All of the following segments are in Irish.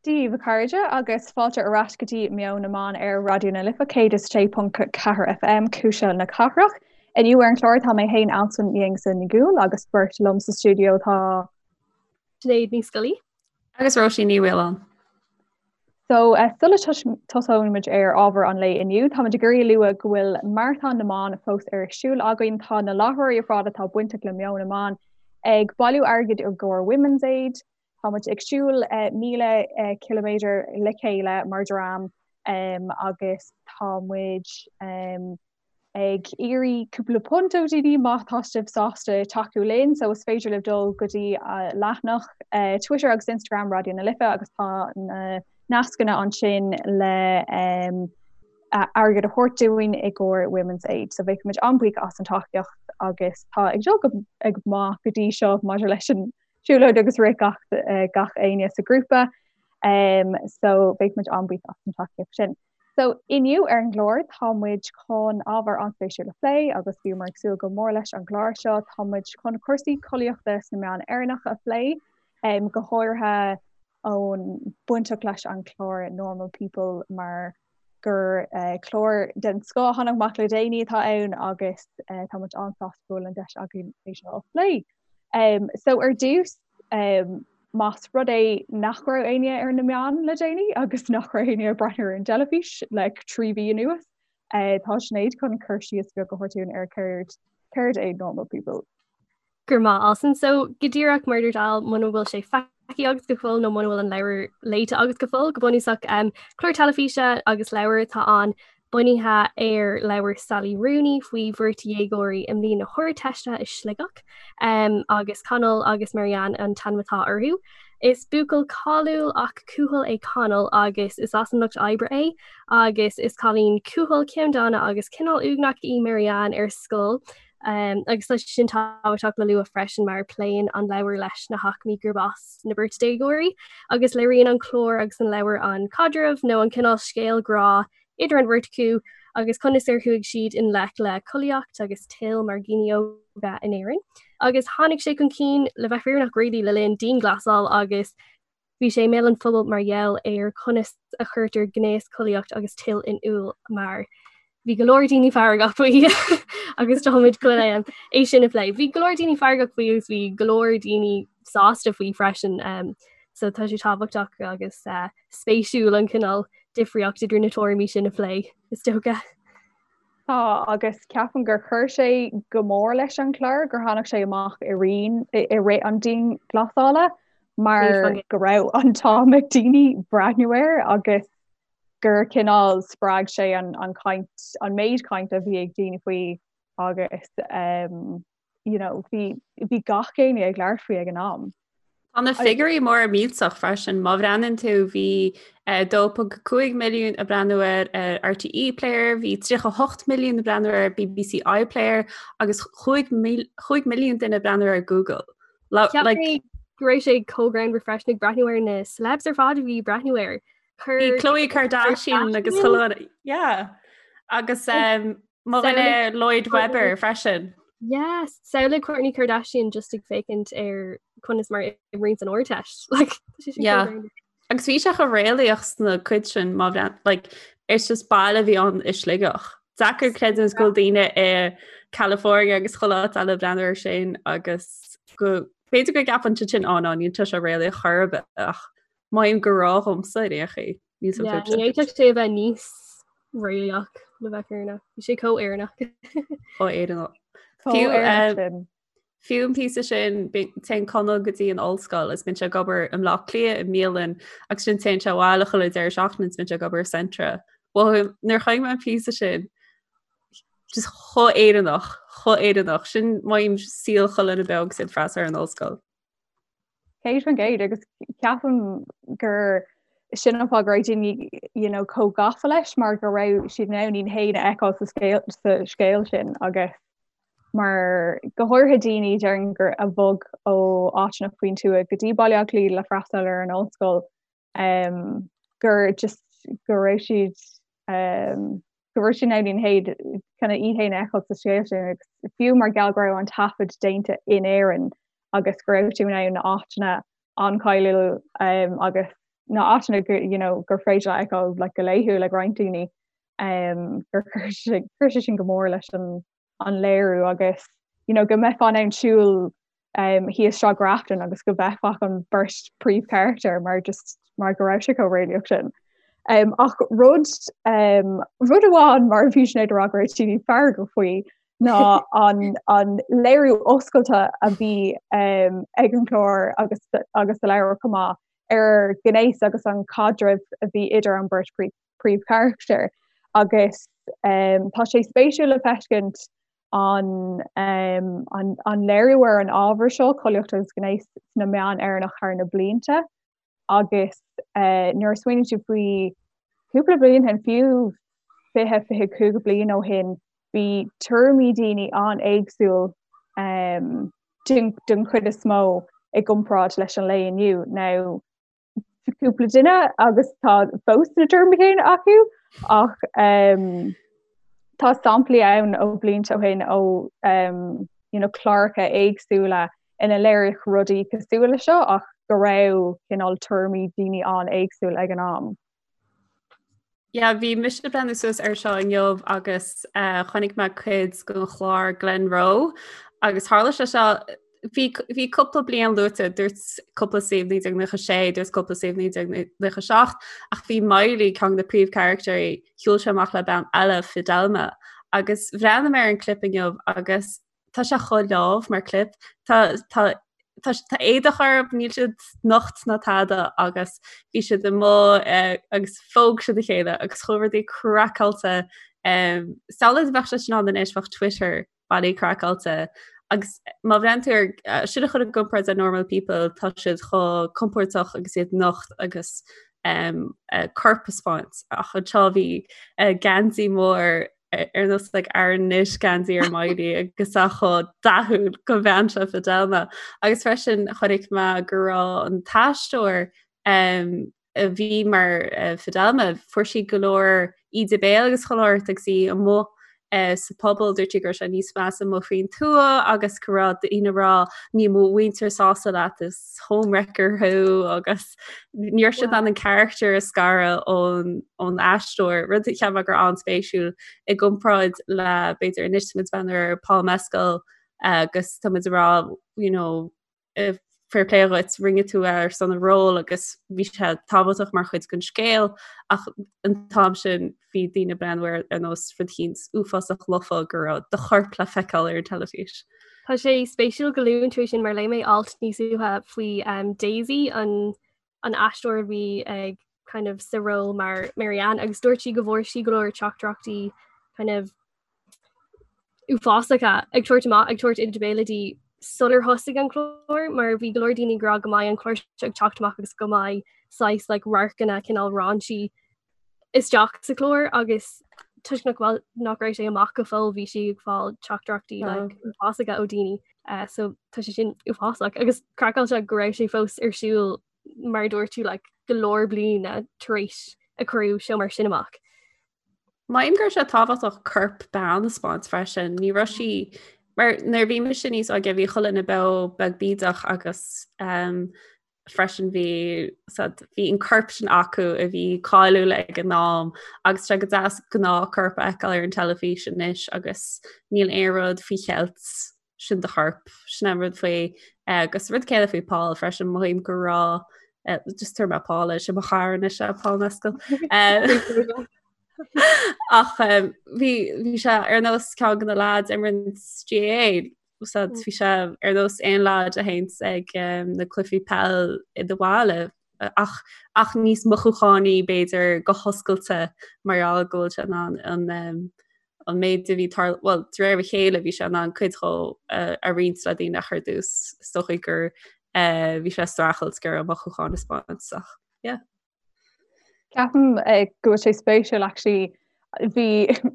Dia daoibh a chairde agus fáilte ar ais go dtí Meon na Meán ar Raidió na Life 106.4 FM, Cuisle na Cathrach. Inniu ar an chlár tá mé féin Alison Aonghusa Ní Dhubhghaill agus beirt liom sa stiúideo tá. Sinéad Ní Scolaí. Agus Róisín Ní Mhaoláin. So sula tosóimid ar ábhar an lae inniu, táimid ag iarraidh a lua go bhfuil Maratón na mBan fós ar siúl againn. Tá na láithreoirí ar fad atá bainteach le Meon na Meán ag bailiú airgid i gcomhair Women's Aid. Táimid ag siúl 1,000 ciliméadar le chéile mar dhream agus tá muid ag iarraidh cúpla punt ó dhaoine má tá sibh sásta tacú linn so is féidir libh dul go dtí leathanach Twitter agus Instagram Raidió na Life agus tá na nascanna ansin le airgead a thabhairt dúinn i gcomhair Women's Aid. So bheadh muid an-bhuíoch as an tacaíocht agus tá ag dul go go maith go dtí seo maidir leis an siúlóid agus rith gach gach éinne sa grúpa um, so bheadh muid an-bhuíoch as an tacaíocht sin. So, inniu ar an gclár, tá muid chun ábhar an-spéisiúil a phlé agus bhíomar ag súil go mór leis an gclár seo. Tá muid chun cúrsaí collaíochta sna meáin Éireannacha a phlé, go háirithe ón bainteach leis an chlár Normal People mar gur clár den scoth a tháinig amach le déanaí atá ann agus tá muid an-sásta go bhfuil an deis againn é seo a phlé. So ar dtús, más rud é nach raibh éinne ar na meáin le déanaí agus nach raibh éinne ag breathnú ar an dteilifís le 3 mhí anuas, tá Sinéad chun cur síos beag a thabhairt dúinn ar céard céard é Normal People. Go raibh maith Alison. So go díreach mar a dúirt Al muna bhfuil sé feicthe agat go fóill nó muna bhfuil an leabhar léite agat go fóill, go bunúsach clár teilifíse agus leabhar atá ann bunaithe ar leabhar Sally Rooney faoi bheirt dhéagóirí i mbliain na hArdteiste i Sligeach, agus Conall agus Marianne an t-ainm atá orthu. Is buachaill cáiliúil ach cúthail é Conall agus is as an lucht oibre é agus is cailín cúthail, ceanndána agus cineál uaigneach í Marianne ar scoil. Agus tá sé sin tábhachtach le lua freisin mar pléann an leabhar leis na haicmí gurb as na beirt déagóirí agus léiríonn an clár agus an leabhar an caidreamh nó an cineál scéal grá idir an bheirt acu agus conas ar chuaigh siad i ngleic le collaíocht agus toil mar dhaoine óga in Éirinn. Agus tháinig sé chun cinn le bheith fírinneach really le linn dianghlasáil agus bhí sé i mbéal an phobail mar gheall ar conas a chuirtear gnéas, collaíocht agus toil in iúl mar bhí go leor daoine feargach faoi agus táimid chun é sin a phlé. Bhí go leor daoine feargach faoi agus bhí go leor daoine sásta faoi freisin um, so tá sé tábhachtach agus uh, spéisiúil an cineál difríocht idir na tuairimí sin a phlé, is dócha. Tá, agus ceapaim gur chuir sé go mór leis an chlár gur tháinig sé amach i rith i rith an dianghlasála mar go raibh an t-am ag daoine breathnú air agus gur cineál spreag sé an an chaint an méid cainte a bhí ag daoine faoi agus um, you know, bhí bhí gach éinne ag labhairt faoi ag an am. Tá na figiúirí mór millteach freisin. Má bhreathnaíonn tú bhí 2.5 milliún ag breathnú air ar RTÉ Player, bhí 38 milliún ag breathnú ar BBC iPlayer agus 5 milliún duine ag breathnú ar Google. Like, go raibh sé chomh greannmhar freisin ag breathnú ar na celebs ar fad a bhí ag breathnú air. Bhí Khloe Kardashian agus chuile yeah. Agus um, Mo dhuine Lloyd Webber freisin. Yes, samhlaigh Kourtney Kardashian just ag féachaint ar conas mar imríonn san Ardteist. Like, tá sé sin Yeah. chomh greannmhar. Agus bhí sé chomh réalaíoch sna cuid sin má bhreath like, it's just baile a bhí ann i Sligeach. Deacair creidiúint go bhfuil daoine i California agus chuile áit eile ag breathnú air sin agus go b'fhéidir go gceapann siad sin á ná níl sé seo réalaíoch chor ar bith ach maím go raibh dhomsa ar aon chaoi. Níl san Yeah, ní fhéadfadh sé a bheith níos réalaíoch le bheith fírinneach. Bhí sé chomh Éireannach. Chomh Éireannach. Fiú, Éireannach sin. Fiú an píosa sin téann Conall go dtí an ollscoil is bíonn sé ag obair i mBleá Cliath i mbialann agus ansin téann sé abhaile chuile deireadh seachtaine is bíonn sé ag obair i Centra. Well, nuair a chonaic mé an píosa sin just chomh Éireannach, chomh Éireannach. Sin maím saol chuile dhuine beo agus iad freastal ar an ollscoil. 100% agus ceapaim gur sin an fáth go raibh daoine you know, chomh gafa leis mar go raibh siad in ann iad féin a fheiceáil sa scéal, sa scéal sin agus mar go háirithe daoine déarfainn gur a bhog ó áiteanna faoin tuath go dtí Baile Átha Cliath le freastal ar an ollscoil um, gur just go raibh siad um, go raibh siad in ann iad féin kind of iad féin a fheiceáil sa scéal sin agus fiú mar gheall go raibh an taifead déanta in Éirinn agus go raibh tú in ann na áiteanna an-cháiliúil um, agus na áiteanna go you know gur féidir a fheiceáil like go laethúil ag roinnt daoine um gur chuir sé chuir sé sin go mór leis an an léiriú agus you know go mbeifeá in ann siúl um thíos Sráid Grafton agus go bhfeicfeá an bheirt príomhcharachtar mar just mar go raibh sé chomh réalaíoch sin. Um, ach rud um, rud amháin mar a bhí Sinéad ag rá go raibh sí feargach faoi ná an, an léiriú oscailte a bhí um, ag an chlár agus, agus sa leabhar chomh maith ar ghnéas agus an caidreamh a bhí idir an bheirt príomhcharachtar agus um, tá sé spéisiúil le feiscint an, um, an, an léiriú ar an ábhar seo, collaíocht agus gnéas sna meáin Éireannach thar na blianta agus uh, nuair a smaoiníonn tú faoi cúpla bliain ó shin fiú 20 25 bliain ó shin bhí tuairimí daoine an-éagsúil um, den, den chuid is mó i gcomparáid leis an lae inniu. Now, cúpla duine agus tá fós na tuairimí céanna acu ach um, tá samplaí ann ó blianta ó shin ó um, you know, cláracha éagsúla ina léiríodh rudaí cosúil le seo ach go raibh cineál tuairimí daoine an-éagsúil ag an am. Yeah, bhí mise ag breathnú suas ar seo inniu agus uh, chonaic mé cuid den chlár Glenroe agus tharla sé seo bhí bhí cúpla bliain luaite dúirt cúpla suíomh 1996 dúirt cúpla suíomh 1997 ach bhí Miley ceann de na príomhcharactéirí shiúil sé amach le bean eile Fidelma agus bhreathnaigh mé ar an clip inniu agus tá sé chomh leamh mar clip. Tá tá tá tá éadach orthu, níl siad nocht ná tada agus bhí siad amuigh eh, agus phóg siad a chéile agus chuaigh rudaí craiceáilte. Um, Samhlaigh dá mbeadh sé sin ann anois bheadh Twitter bailí craiceáilte agus má bhreathnaíonn tú ar eh, sin a chur i gcomparáid le normal people tá siad chomh compordach agus iad nocht agus um, uh, corp a 'speáint ach anseo bhí uh, geansaí mór ar nós like Aran knit geansaí ar Miley agus é chomh dathúil go bhean seo Fidelma. Agus freisin chonaic mé go raibh an t-aisteoir um, a bhí mar uh, Fidelma, fuair sí go leor íde béil agus chuile shórt agus í amuigh uh, sa pobal dúirt sí go raibh sé níos measa amuigh faoin tuath agus go raibh daoine ag rá níl mo mhuintir sásta leat is homewrecker thú agus ní raibh siad in ann an character a scaradh ón ón aisteoir, rud a cheap mé gur an-spéisiúil i gcomparáid le b'fhéidir anois tá muid ag breathnú ar Paul Mescal agus tá muid ag rá you know fair play dhuit rinne tú é ar son an ról agus bhí sé tábhachtach mar chuid den scéal ach an t-am sin bhí daoine ag breathnú air ar nós rud eicínt uafásach lofa go raibh do chorp le feiceáil ar an teilifís. Tá sé spéisiúil go luann tú é sin mar léigh mé alt níos luaithe faoi um, Daisy an an aisteoir a bhí ag kind of sa ról mar Marianne agus dúirt sí go bhfuair sí go leor teachtaireachtaí kind of uafásacha ag tabhairt amach ag tabhairt íde béil di sular thosaigh an clár mar bhí go leor daoine ag rá go mbeidh an clár seo ag teacht amach agus go mbeidh saghas like radharcanna cineál raunchy isteach sa chlár agus toisc nach bhfuil nach raibh sé amach go fóill bhí sí ag fáil teachtaireachtaí like uafásacha ó daoine uh, so tá sé sin uafásach agus craiceáilte go raibh sé fós ar siúl mar dúirt tú like, go leor bliana tar éis a cuireadh seó mar sin amach. Mothaím go raibh sé tábhachtach corp bean a 'speáint freisin, ní raibh sí mar nuair bhí mise níos óige bhí chuile dhuine beo beag bídeach agus um, freisin bhí bhí an corp sin acu a bhí cáiliúil ag an am agus sé go deas gnáthchorp a fheiceáil ar an teilifís anois agus níl aon rud faoi cheilt sin do chorp sin an rud faoi eh, agus rud céanna faoi Paul freisin mothaím go raibh eh, just tabharfaidh mé Paul é sin mo chara anois é Paul Mescal. Eh, ach bhí bhí sé ar nós ceann de na lads a imríonn GAA Úsáid bhí sé ar nós aon leaid a théanns ag na cluichí peil i do bhaile ach ach níos mothúchánaí b'fhéidir go hoscailte mar gheall go bhfuil sé in ann an an méid a bhí tar bhuel de réir a chéile bhí sé in ann cuid dhó a roinnt le daoine ach ar dtús is dócha gur bhí sé ag streachailt gur a mothúcháin a 'speáint ach yeah. Ceapaim eh, go bhfuil sé spéisiúil actually bhí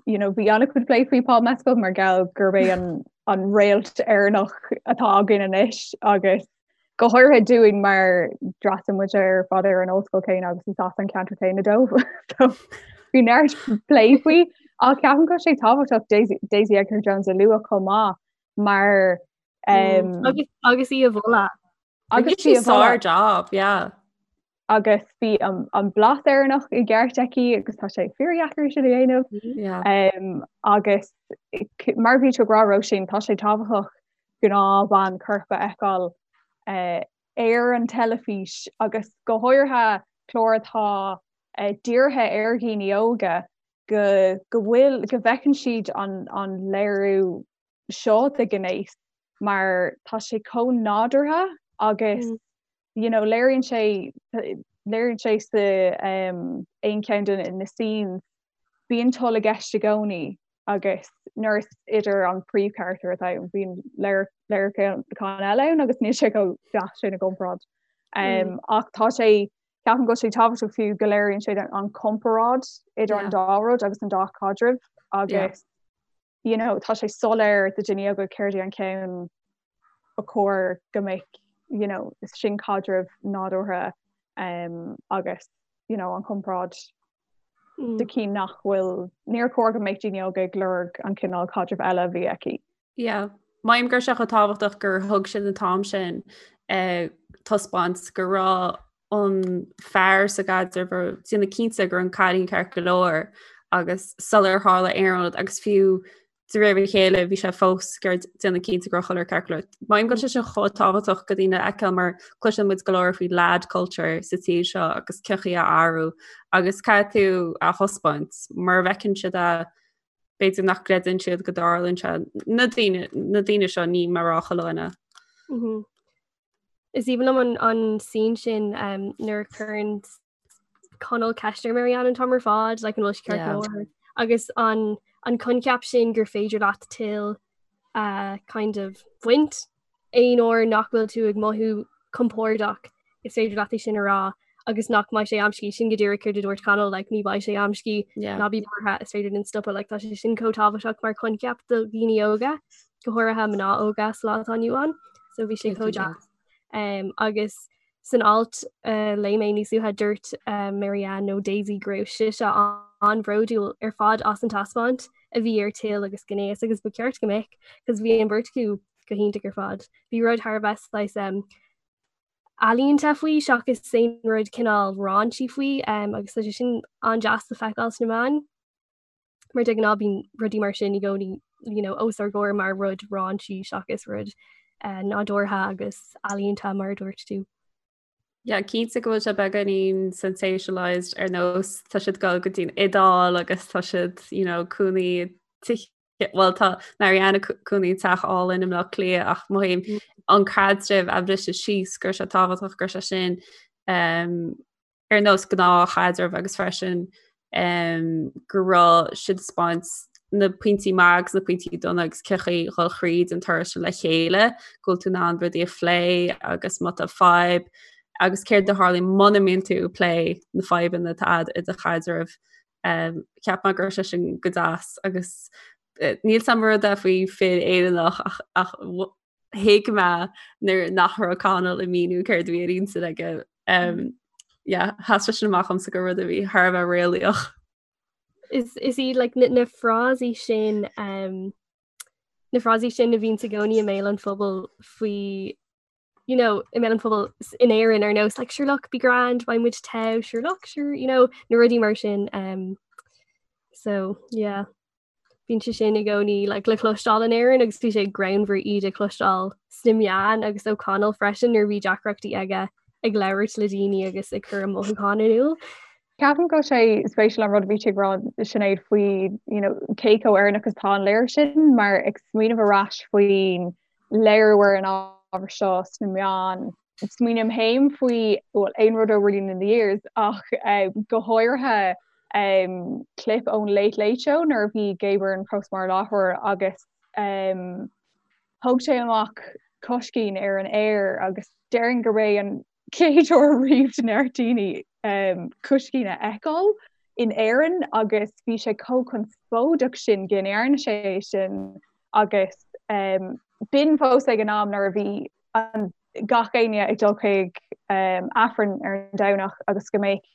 you know, bhí an-chuid plé faoi Paul Mescal mar gheall gurb é an, an réalt Éireannach atá againn anois agus go háirithe dúinn mar d'fhreastail muid ar fad ar an ollscoil céanna agus is as an ceantar céanna dó. So bhí neart plé faoi ach ceapaim go bhfuil sé tábhachtach Daisy, Daisy Edgar Jones a lua chomh maith mar um, agus, agus í a mholadh. Agus í a mholadh. Job, yeah. Agus bhí an blas Éireannach i gceart aici agus tá sé fíordheacair sin a dhéanamh. Yeah. Agus mar bhí tú ag rá Róisín, tá sé tábhachtach gnáthbhean coirp a fheiceáil ar an teilifís agus go háirithe clár atá dírithe ar dhaoine óga go go bhfuil go bhfeiceann siad an an léiriú seo de ghnéas mar tá sé chomh nádúrtha agus mm. you know léiríonn sé léiríonn sé sa um, aon cheann de na scenes bíonn toil i gceist i gcónaí agus nuair is idir an príomhcharachtar atá ann bíonn léiriúchán eile ann agus níl sé chomh deas sin i gcomparáid. Um, ach tá sé ceapaim go bhfuil sé tábhachtach fiú go léiríonn sé an comparáid idir an dá rud agus an dá chaidreamh agus you know, tá sé soiléir do dhaoine óga céard é an ceann ba chóir go mbeadh you know, sin caidreamh nádúrtha um, agus you know, an chomparáid mm. de cinn nach bhfuil níor chóir go mbeadh daoine óga ag lorg an cineál caidreamh eile a bhí aici. Yeah. Maím go raibh sé chomh tábhachtach gur thug siad an t-am sin uh, taispeáint go raibh an fear sa gcaidreamh ag déanamh cinnte go raibh an cailín ceart go leor agus sular tharla aon rud agus fiú de réir a chéile bhí sé fós ag déanamh cinnte go raibh chuile rud ceart go leor. Maím go bhfuil sé sin chomh tábhachtach do dhaoine a fheiceáil mar cloiseann muid go leor faoi lad culture sa tír seo agus cén chaoi a athrú agus caithfidh tú a thaispeáint mar a bhfeiceann siad a b'fhéidir nach gcreideann siad go dtarlaíonn sé na daoine na daoine seo ní mar rá chuile dhuine. Mhm. Is aoibhinn liom an, an scene sin um, nuair a chuireann Conall ceist ar Marianne an t-am ar fad, like, an bhfuil sí ceart go leor. Agus an, an coincheap sin gur féidir leat toil uh, kind of bhaint aon uair nach bhfuil tú ag mothú compordach is féidir leat é sin a rá agus nach mbeidh sé amscaí sin go díreach céard a dúirt Conall like, ní bheidh sé amscaí yeah. ná bí buartha is féidir linn stopadh like, tá sé sin chomh tábhachtach mar choincheap do dhaoine óga go háirithe mná óga sa lá atá inniu ann so bhí sé chomh deas um, agus san alt uh, léigh mé níos luaithe dúirt uh, Marianne nó Daisy go raibh sise an-bhródúil ar fad as an taispeáint a bhí ar toil agus gnéas agus ba cheart go mbeadh cos bhí an bheirt acu go hiontach ar fad. Bhí rud thar a bheith saghas um, ealaíonta faoi seachas aon rud cineál raunchy faoi um, agus tá sé sin an-deas le feiceáil sna meáin. Mar de ghnáth bíonn rudaí mar sin i gcónaí you know, os ár gcomhair mar rud raunchy seachas rud uh, nádúrtha agus ealaíonta mar a dúirt tú. Yeah, cinnte go bhfuil sé beagáinín sensationalized ar nós tá siad ag dul go dtí'n Iodáil agus tá siad you know, cónaí teach well tá Marianne ag cónaí teach álainn i mBleá Cliath ach mothaím mm. an caidreamh a bhriseadh síos go raibh sé tábhachtach go raibh sé sin um, ar nós gnáthchaidreamh agus freisin um, go raibh siad ag taispeáint na pointí maith agus na pointí dona agus cén chaoi dhul thríd an turas sin le chéile, go bhfuil tú in ann rudaí a phlé agus má tá fadhb agus céard a tharlaíonn muna mbíonn tú ag plé na fadhbanna atá agat i do chaidreamh. Um, cheap mé go raibh sé sin go deas agus eh, níl a fhios agam rud é faoi fir Éireannach ach, ach thuig mé nuair nach raibh Conall ag míniú céard a bhí ar intinn aige. Um, yeah, sheas sé sin amach domsa gur rud a bhí thar a bheith réalaíoch. Is, is iad like, na, na frásaí sin um, na frásaí sin a bhíonn i gcónaí i mbéal an phobail faoi you know, i mbéal an phobail in Éirinn ar nós like, sure look, be grand, beidh muid togha, sure look, sure, you know, na rudaí mar sin. Um, so yeah. Bíonn sé sin i gcónaí like, le cloisteáil in Éirinn agus bhí sé greannmhar iad a chloisteáil sna meáin agus ó Conall freisin nuair a bhí deacrachtaí aige ag labhairt le daoine agus ag cur a mothúchán in iúl. Ceapaim go bhfuil sé spéisiúil an rud a bhí tú ag rá Sinéad faoi you know, cé chomh Éireannach is atá an léiriú sin mar ag smaoineamh ar ais faoin léiriú ar an ábhar seo sna meáin Smaoiním féin faoi, bhuel, aon rud ó Rilín in the Years ach go háirithe clip ón Late Late Show nuair a bhí Gay Byrne fós mar láithreoir agus thóg sé amach coiscín ar an aer agus déarfainn gurb é an chéad uair riamh do neart daoine coiscín a fheiceáil in Éirinn agus bhí sé chomh conspóideach sin go ndearna sé é sin agus b'in fós ag an am nuair a bhí an gach éinne ag dul chuig Aifreann ar an Domhnach agus go mbeadh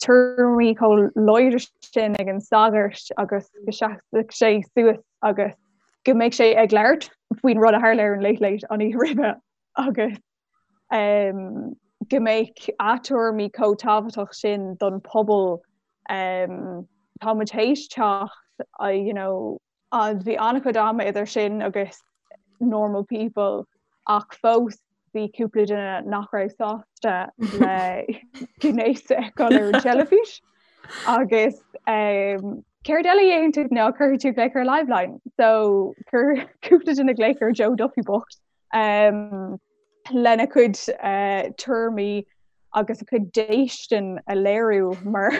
tuairimí chomh láidir sin ag an sagart agus go seasfadh sé suas agus go mbeadh sé ag labhairt faoin rud a tharla ar an Late Late an oíche roimhe agus. go mbeadh a tuairimí chomh tábhachtach sin don pobal um, tá muid théis teacht you know, bhí an-chuid ama idir sin agus normal people ach fós bhí cúpla duine nach raibh sásta le gnéas a fheiceáil ar an teilifís agus um, céard eile a dhéanann tú ná cuirfidh tú glaoch ar Liveline so chuir cúpla duine glaoch ar Joe Duffy bocht um, lena cuid uh, tuairimí agus a cuid déistin a léiriú mar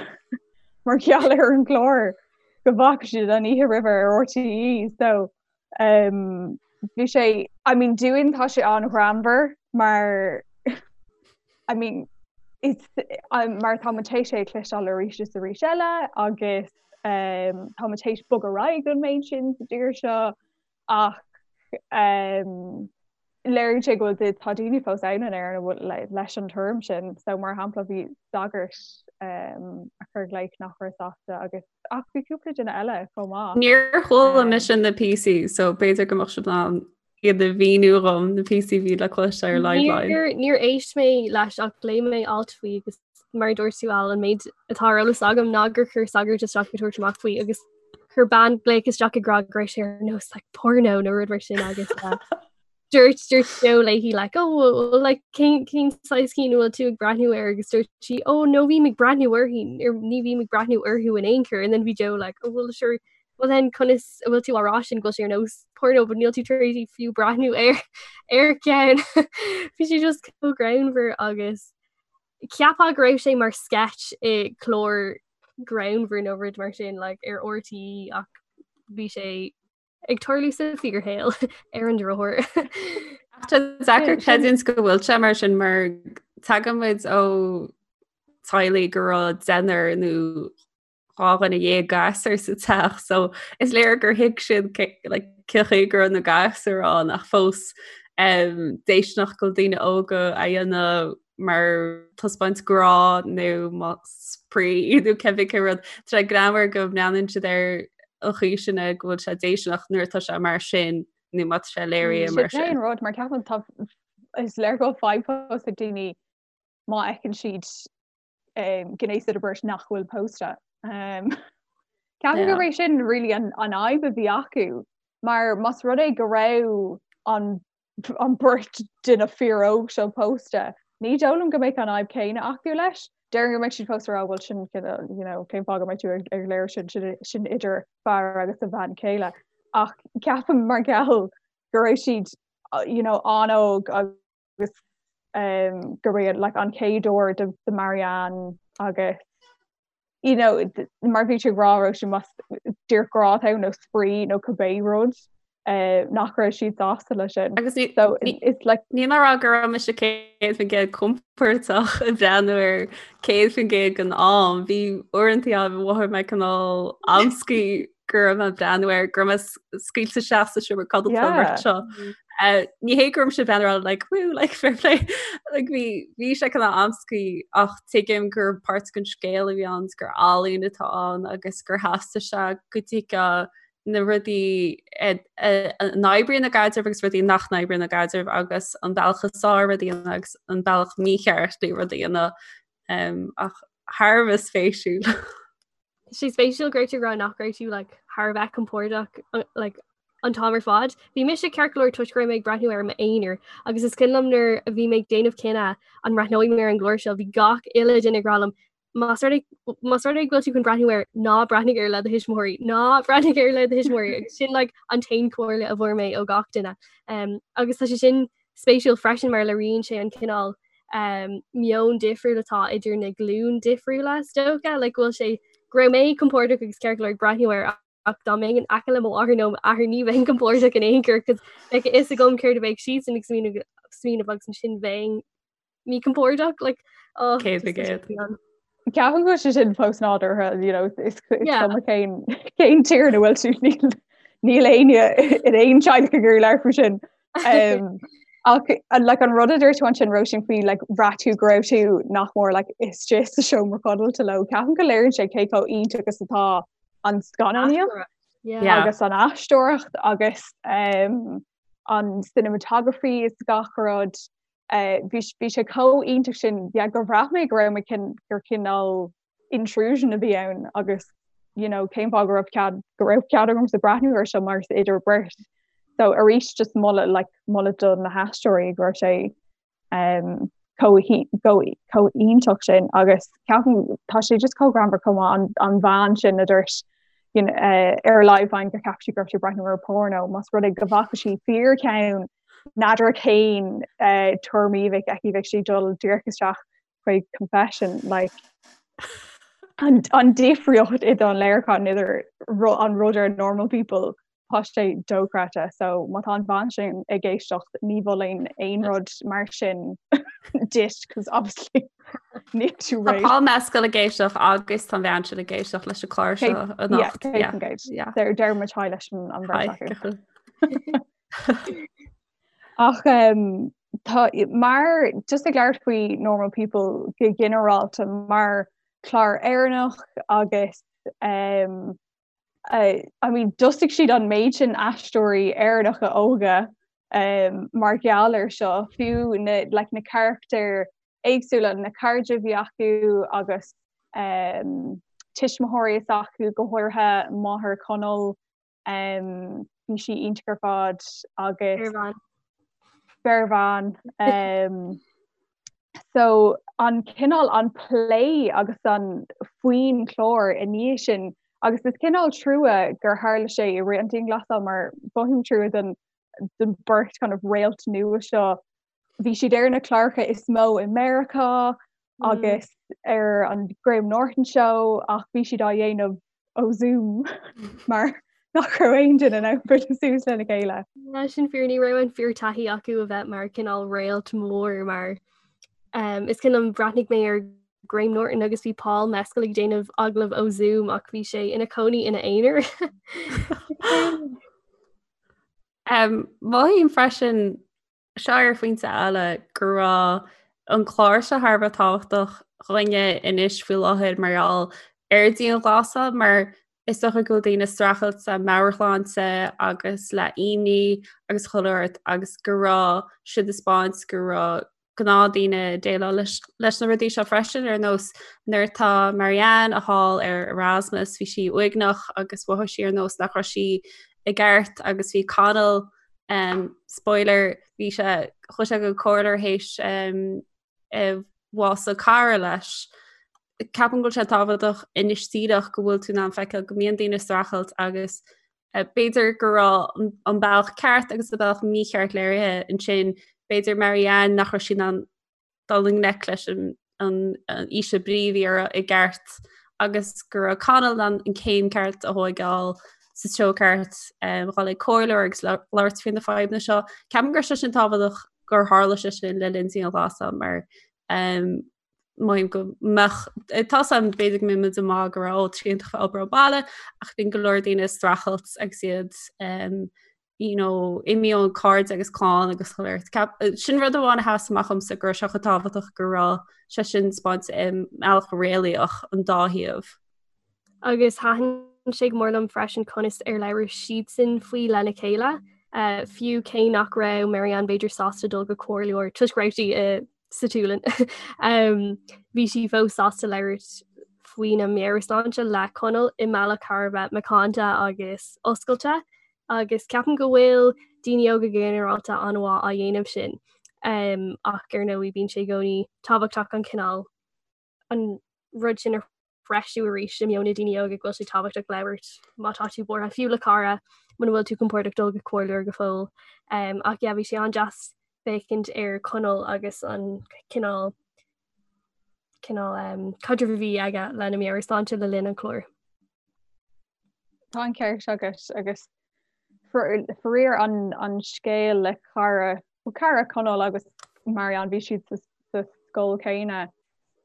mar gheall ar an gclár go bhfaca siad an oíche roimhe ar RTÉ so um, bhí sé I mean dúinn tá sé an-ghreannmhar mar I mean it's um, mar tá muid théis é a chloisteáil arís is arís eile agus um, tá muid théis bogadh ar aghaidh an méid sin sa tír seo ach um, léiríonn sé go bhfuil tá daoine fós ann in Éirinn a bhfuil leis an tuairim sin. So mar shampla bhí sagart um, a chuir glaoch nach raibh sásta agus ach bhí cúpla duine eile chomh maith. Níor chuala um, mise na píosaí, so b'fhéidir go mbeadh sibh in ann iad a mhíniú dhom na píosaí a bhí le cloisteáil ar Liveline. Níor níor éist mé leis ach léigh mé alt faoi agus mar a dúirt tú Al an méid atá ar eolas agam ná gur chuir sagart isteach ag tabhairt amach faoi agus chuir bean glaoch isteach ag rá go raibh sé ar nós like, porno nó rud mar sin agus uh, dúirt dúirt Joe léi like, oh, well, like, cén cén saghas cinn bhfuil tú ag breathnú air agus dúirt sí oh no bím ag breathnú uirthi ar ní bhím ag breathnú orthu in aon chor and then bhí Joe like oh well sure well then conas a bhfuil tú á rá sin go bhfuil sé ar nós porno but níl tú tar éis fiú breathnú ar ar ceann bhí sé just chomh greannmhar agus Cheapfá go raibh sé mar sketch i clár greannmhar nó rud mar sin like, ar RTÉ ach bhí sé ag tarlú sa fíorshaol ar an drochuair. Tá deacair creidiúint go bhfuil sé mar sin mar tagann muid ó teaghlaigh go raibh deichniúr nó 12 gasúr sa teach so is léir gur thuig siad like, cén chaoi go raibh na gasúir ann ach fós um, déisteanach go bhfuil daoine óga á dhéanamh mar taispeáint grá nó mar spraoi nó cibé cén rud. Tá sé greannmhar go mbreathnaíonn siad ar an chaoi sin é go bhfuil sé déisteanach nuair atá sé mar sin nó má tá sé léirithe mar sin. Sin rud mar ceapaim tá is léir go bhfuil fadhb fós ag daoine má fheiceann siad um, gnéas idir beirt nach bhfuil pósta. Um, Ceapaim gurb é sin really an, an fhadhb a bhí acu, mar más rud é go raibh an, an beirt duine fíoróg seo pósta, ní dóigh liom go mbeadh an fhadhb céanna acu leis. Déarfainn go mbeadh siad fós ag rá bhuel sin you know, cén fáth go mbeidh tú ag, ag léiriú sin, sin, sin idir fear agus a bhean chéile. Ach ceapaim mar gheall go raibh siad you know, an-óg agus um, gurb é like, an chéad uair do, do Marianne agus you know, mar bhí tú ag rá Róisín más díreach grá atá ann nó spraoi nó cibé rud uh, nach raibh siad sásta leis sin. Agus ní, so, ní, it's like, níl mé ag rá go raibh mise 100% compordach ag breathnú air 100% den am. Bhí uaireanta ann a mhothaigh mé cineál amscaí go raibh mé ag breathnú air, go raibh mé scaoilte isteach sa seomra codlata an bheirt seo. Ní hé go raibh mise ag breathnú air like woo like fair play like bhí bhí sé cineál amscaí ach tuigim gur páirt den scéal a bhí ann gur ealaín atá ann agus gur theastaigh sé go dtuigfeá na rudaí a n-oibríonn i gcaidreamh agus rudaí nach n-oibríonn i gcaidreamh agus an bealach is fearr rudaí a dhéanamh agus an bealach mícheart le rudaí a dhéanamh ach thar a bheith spéisiúil. Tá sé spéisiúil go raibh tú ag rá nach raibh tú like, thar a bheith compordach like, an t-am ar fad. Bhí mise ceart go leor toisc go raibh mé ag breathnú air i m'aonar agus is cuimhin liom nuair a bhí mé ag déanamh cinneadh an mbreathnóidh mé ar an gclár seo, bhí gach uile duine ag rá liom más rud más rud é go bhfuil tú chun breathnú air ná breathnaigh air le do thuismitheoirí, ná breathnaigh air le do thuismitheoirí agus sin like, an t-aon chomhairle a bhfuair mé ó gach duine. Um, agus tá sé sin spéisiúil freisin mar léiríonn sé an cineál um, meon difriúil atá idir na glúin difriúla is dócha, like, go bhfuil sé go raibh mé compordach agus ceart go leor ag breathnú air ach dá mbeinn in aice le mo mháthair nó m'athair ní bheinn compordach in aon chor cos bheadh a fhios agam céard a bheadh siadsan ag smaoineamh smaoineamh agus ansin bheinn míchompordach like, oh, 100%. Ceapaim go bhfuil sé sin fós nádúrtha you know, is cuma cén cén tír ina bhfuil tú níl níl éinne in aon teaghlach ag iarraidh labhairt faoi sin. Um, ach like, an rud a dúirt tú ansin Róisín faoi like, bhraith tú go raibh tú nach mór like, istigh sa seomra codlata leo. Ceapaim go léiríonn sé cé chomh iontach is atá an scannánaíocht Yeah. agus an aisteoireacht agus um, an cinematography is gach rud. Bhí bhí sé chomh iontach sin yeah gur bhraith mé go raibh mé gur cineál intrusion a bhí ann agus you know cén fáth go raibh cead go raibh cead agamsa breathnú air seo mar is idir beirt. So arís just moladh like moladh do na haisteoirí go raibh sé um, chomh iontach sin agus ceapaim tá sé just chomh greannmhar chomh maith an, an bhean sin a dúirt you know, uh, ar Liveline gur cheap sí go raibh sí ag breathnú ar porno más rud é go bhfaca sí fíorcheann n'fheadar cén uh, tuairim a bheadh aici bheadh sí dul díreach isteach chuig confession like an, an difríocht idir an léiriúchán idir an rud ar normal people tá sé dochreidte so má tá an bhean sin ag éisteacht ní mholfainn aon rud mar sin duit cos obviously níl tú réidh. Tá Paul Mescal ag éisteacht agus tá an bhean sin ag éisteacht leis an chlár seo anocht. Yeah, deir muid haigh leis an bheirt acu. Ach um, tá mar just ag labhairt faoi normal people go ginearálta mar chlár Éireannach agus um, uh, I mean d'fhostaigh siad an méid sin aisteoirí Éireannacha óga um, mar gheall ar seo fiú na, like, na carachtair éagsúla na cairde a bhí acu agus um, tuismitheoirí s'acu go háirithe máthair Chonaill Um, bhí sí iontach ar fad agus Bearbhean. Um, so an cineál an plé agus an faoin chlár i ndiaidh sin agus is cineál trua gur tharla sé i rith an dianghlasáil mar mothaím trua don don beirt kind of réalt nua seo bhí siad ar na cláracha is mó i Meiriceá mm. agus ar an Graham Norton Show ach bhí siad á dhéanamh ó Zoom mar nach raibh aon duine in ann bualadh suas lena chéile. Sin fíor ní raibh an fíortaithí acu a bheith mar cineál réalt mór mar um, is cuimhin liom bhreathnaigh mé ar Graham Norton agus bhí Paul Mescal ag déanamh agallamh ó Zoom ach bhí sé ina cónaí ina aonar. Um, mothaím freisin seo ar phointe eile go raibh an clár seo thar a bheith tábhachtach dhúinne anois faoi láthair mar gheall ar dianghlasáil mar is dócha go bhfuil daoine ag streachailt le meabhairshláinte agus le imní agus chuile shórt agus go raibh siad ag 'spáint go raibh gnáthdhaoine ag déileáil leis na rudaí seo freisin ar nós nuair atá Marianne thall ar Erasmus bhí sí uaigneach agus mhothaigh sí ar nós nach raibh sí i gceart agus bhí Conall um, spoiler bhí sé chuaigh sé go comhairleoir théis um, bhás cara leis. Ceapaim go bhfuil sé tábhachtach anois díreach go bhfuil tú in ann feiceáil go mbíonn daoine ag streachailt agus B'fhéidir go raibh an bealach ceart agus an bealach mícheart léirithe ansin. B'fhéidir Marianne nach raibh sí in ann dul i ngleic leis an ísle brí a bhí uirthi i gceart agus go raibh Conall in ann an céim ceart a thóigeáil sa treo ceart dhul ag comhairleoir agus labhairt faoi na fadhbanna seo. Ceapaim go raibh sé sin tábhachtach gur tharla sé sin le linn dianghlasáil mar Mothaím go mbeadh tá 's agam b'fhéidir go mbeidh muid ag maíomh go raibh ó tá sé iontach obair ó bhaile ach bíonn go leor daoine ag streachailt agus iad um, you know, imithe ón cairde agus clann agus chuile shórt. Sin rud amháin a sheas amach domsa go raibh sé chomh tábhachtach go raibh sé sin 'spáinte i mbealach réalaíoch an dá thaobh. Agus thaitin sé go mór liom freisin conas ar labhair siadsan faoi lena chéile, fiú cé nach raibh Marianne b'fhéidir sásta dul go comhairleoir toisc go raibh sí i sa tSualainn. Bhí sí fós sásta labhairt faoina meabhairshláinte le Conall i mbealach thar a bheith macánta agus oscailte agus ceapaim go bhfuil daoine óga go ginearálta an-mhaith á dhéanamh sin. Ach ar ndóigh bíonn sé i gcónaí tábhachtach an cineál an rud sin a threisiú arís i meon na daoine óga go bhfuil sé tábhachtach labhairt má tá tú buartha, fiú le cara, muna bhfuil tú compordach dul go comhairleoir go fóill. Um, ach yeah, bhí sé an-deas féachaint ar Conall agus an cineál cineál um, caidreamh a bhí aige lena meabhairshláinte le linn an chláir. Tá an ceart agat agus faraor an, an scéal le cara cara Conall agus Marianne bhí siad sa, sa scoil céanna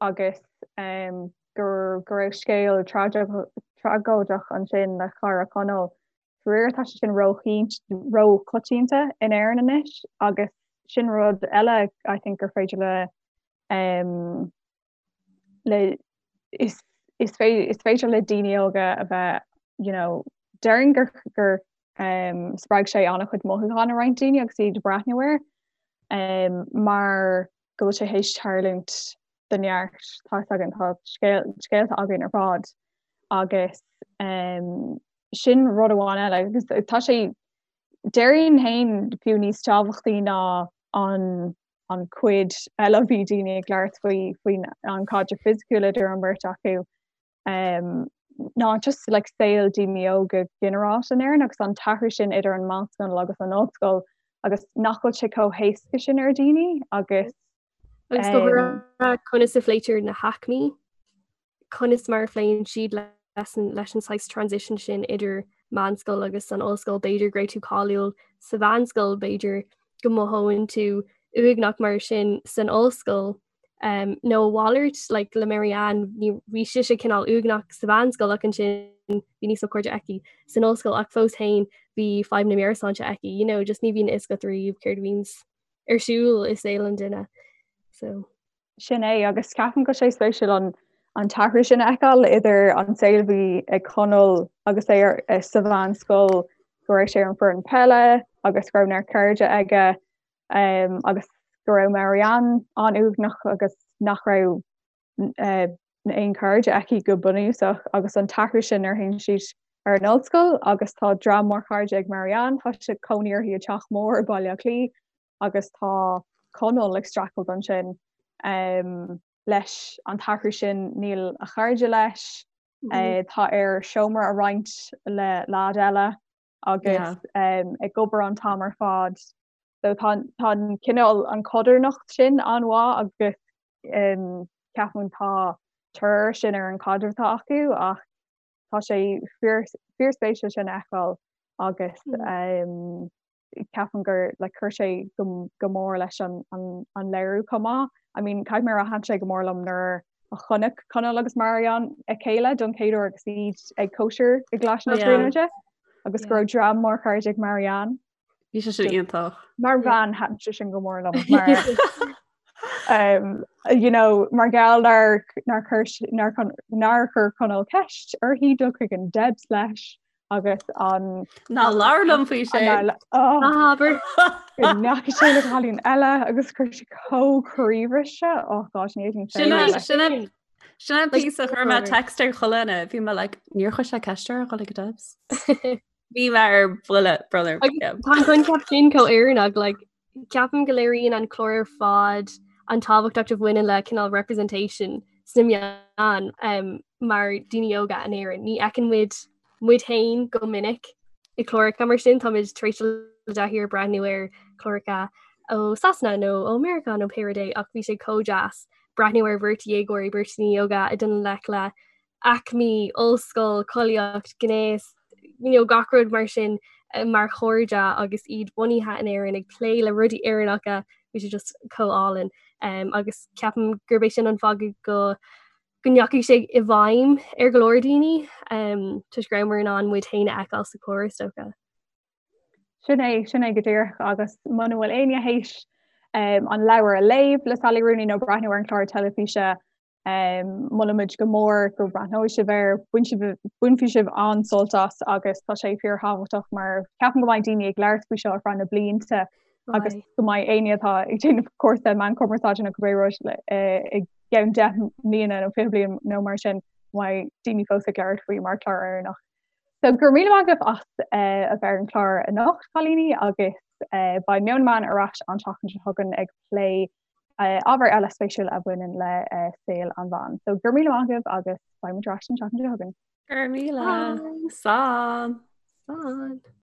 agus um, go, go raibh scéal tragóideach ansin le cara Conall. Faraor tá sé sin róchoitianta in Éirinn anois agus sin rud eile I think gur féidir le um, le is is is féidir le daoine óga a bheith you know déarfainn gur gur um, spreag sé an-chuid mothúchán i roinnt daoine agus iad ag breathnú air. um, mar go bhfuil sé théis tarlúint do neart tá a fhios againn tá scéalta againn ar fad agus um, sin rud amháin eile agus tá sé déarfainn féin fiú níos tábhachtaí ná an an cuid eile bhí daoine ag labhairt faoi faoin an caidreamh fisiciúil idir an bheirt acu um, ná just like saol daoine óga ginearálta in Éirinn agus an t-athrú sin idir an meánscoil agus an ollscoil agus nach bhfuil sé chomh héasca sin ar daoine agus Agus go háirithe conas a phléitear na haicmí, conas mar a phléann siad leis an leis an saghas transition sin idir meánscoil agus an ollscoil, b'fhéidir go raibh tú cáiliúil sa mheánscoil, b'fhéidir go mothóinn tú uaigneach mar sin san ollscoil. Um, nó a mhalairt like, le Marianne ní bhí sise cineál uaigneach sa mheánscoil ach ansin bhí níos mó cairde aici san ollscoil ach fós féin bhí fadhb na meabhairshláinte aici, you know, just ní bhíonn a fhios agat riamh céard a bhíonns ar siúl i saol an duine. So. Sin é agus ceapaim go sé spéisiúil an an t-athrú sin a fheiceáil idir an saol a bhí ag Conall agus é ar, eh, sa mheánscoil go raibh sé ar an foireann peile agus go raibh neart cairde aige um, agus go raibh Marianne an-uaigneach agus nach raibh uh, aon chairde aici go bunúsach agus an t-athrú sin nuair a théann siad ar an ollscoil agus tá dream mór cairde ag Marianne, tá sé cónaí uirthi i teach mór i Baile Átha Cliath agus tá Conall ag streachailt ansin um, leis an t-athrú sin níl a chairde leis, mm -hmm. uh, tá air seomra a roinnt le leaid eile agus yeah. um, ag obair an t-am ar fad. So tá tá an cineál an chodarnacht sin an-mhaith agus um, ceapaim tá tionchar sin ar an caidreamh atá acu ach tá sé fíorspéisiúil sin a fheiceáil agus mm. um, ceapaim gur like, chuir sé go, go mór leis an, an, an léiriú chomh maith. I mean, caithfidh mé a rá thaitin sé go mór liom nuair a chonaic Conall agus Marianne a chéile don chéad uair agus iad ag cóisir i gColáiste na Tríonóide agus go raibh dream mór cairde ag Marianne. Bhí sé sin iontach. Mar bhean thaitin sé sin go mór liom mar um, you know, mar gheall nár nár chuir nár nár chuir Conall ceist uirthi dul chuig an Debs leis agus an Ná labhair liom faoi sin. Abair. Go ndeachaigh sé le cailín eile agus chuir sé chomh croíbhriste oh gosh ní Sin é- sin é- sin é an píosa chuir mé text ar chuile dhuine bhí mé like níor chuir sé ceist air a dhul ag Debs. Bhí mé ar buile brother. Tá an coincheap sin chomh Éireannach like ceapaim go léiríonn an clár ar fad an tábhacht a bhaineann le cineál representation sna meáin um, mar daoine óga in Éirinn. Ní fheiceann muid muid féin go minic i gcláracha mar sin táimid tar éis dul i dtaithí ar breathnú ar chláracha ó Sasana nó ó Meiriceá nó pé rud é ach bhí sé chomh deas breathnú ar bheirt dhéagóirí beirt daoine óga ag dul i ngleic le aicmí, ollscoil, collaíocht, gnéas, you know, gach rud mar sin eh, mar chairde agus iad bunaithe in Éirinn ag plé le rudaí Éireannacha, bhí sé just chomh álainn. Um, agus ceapaim gurb é sin an fáth go go ndeachaigh sé i bhfeidhm ar go leor daoine um, toisc go rabhamar in ann muid féin a fheiceáil sa chlár is dócha. Sin é, sin é go díreach agus muna bhfuil éinne théis um, an leabhar a léamh le Sally Rooney nó breathnú ar an chlár teilifíse Molaimid go mór go mbreathnóidh sibh air, bainfidh sibh an-sult as agus tá sé fíorthábhachtach mar ceapaim go mbeidh daoine ag labhairt faoi seo ar feadh na blianta agus go mbeidh éinne atá ag déanamh cúrsa meán cumarsáide nó cibé rud i gceann 10 mbliana nó 20 bliain nó mar sin go mbeidh daoine fós ag labhairt faoi mar chlár Éireannach. So go raibh míle maith agaibh as a bheith ar an chlár anocht, cailíní, agus beidh Meon na Meán ar ais an tseachtain seo chugainn ag plé ábhar eile spéisiúil a bhaineann le saol an mheáin. So go raibh míle maith agaibh agus beidh muid ar ais an tseachtain seo chugainn. Go raibh míle. Slán. Slán.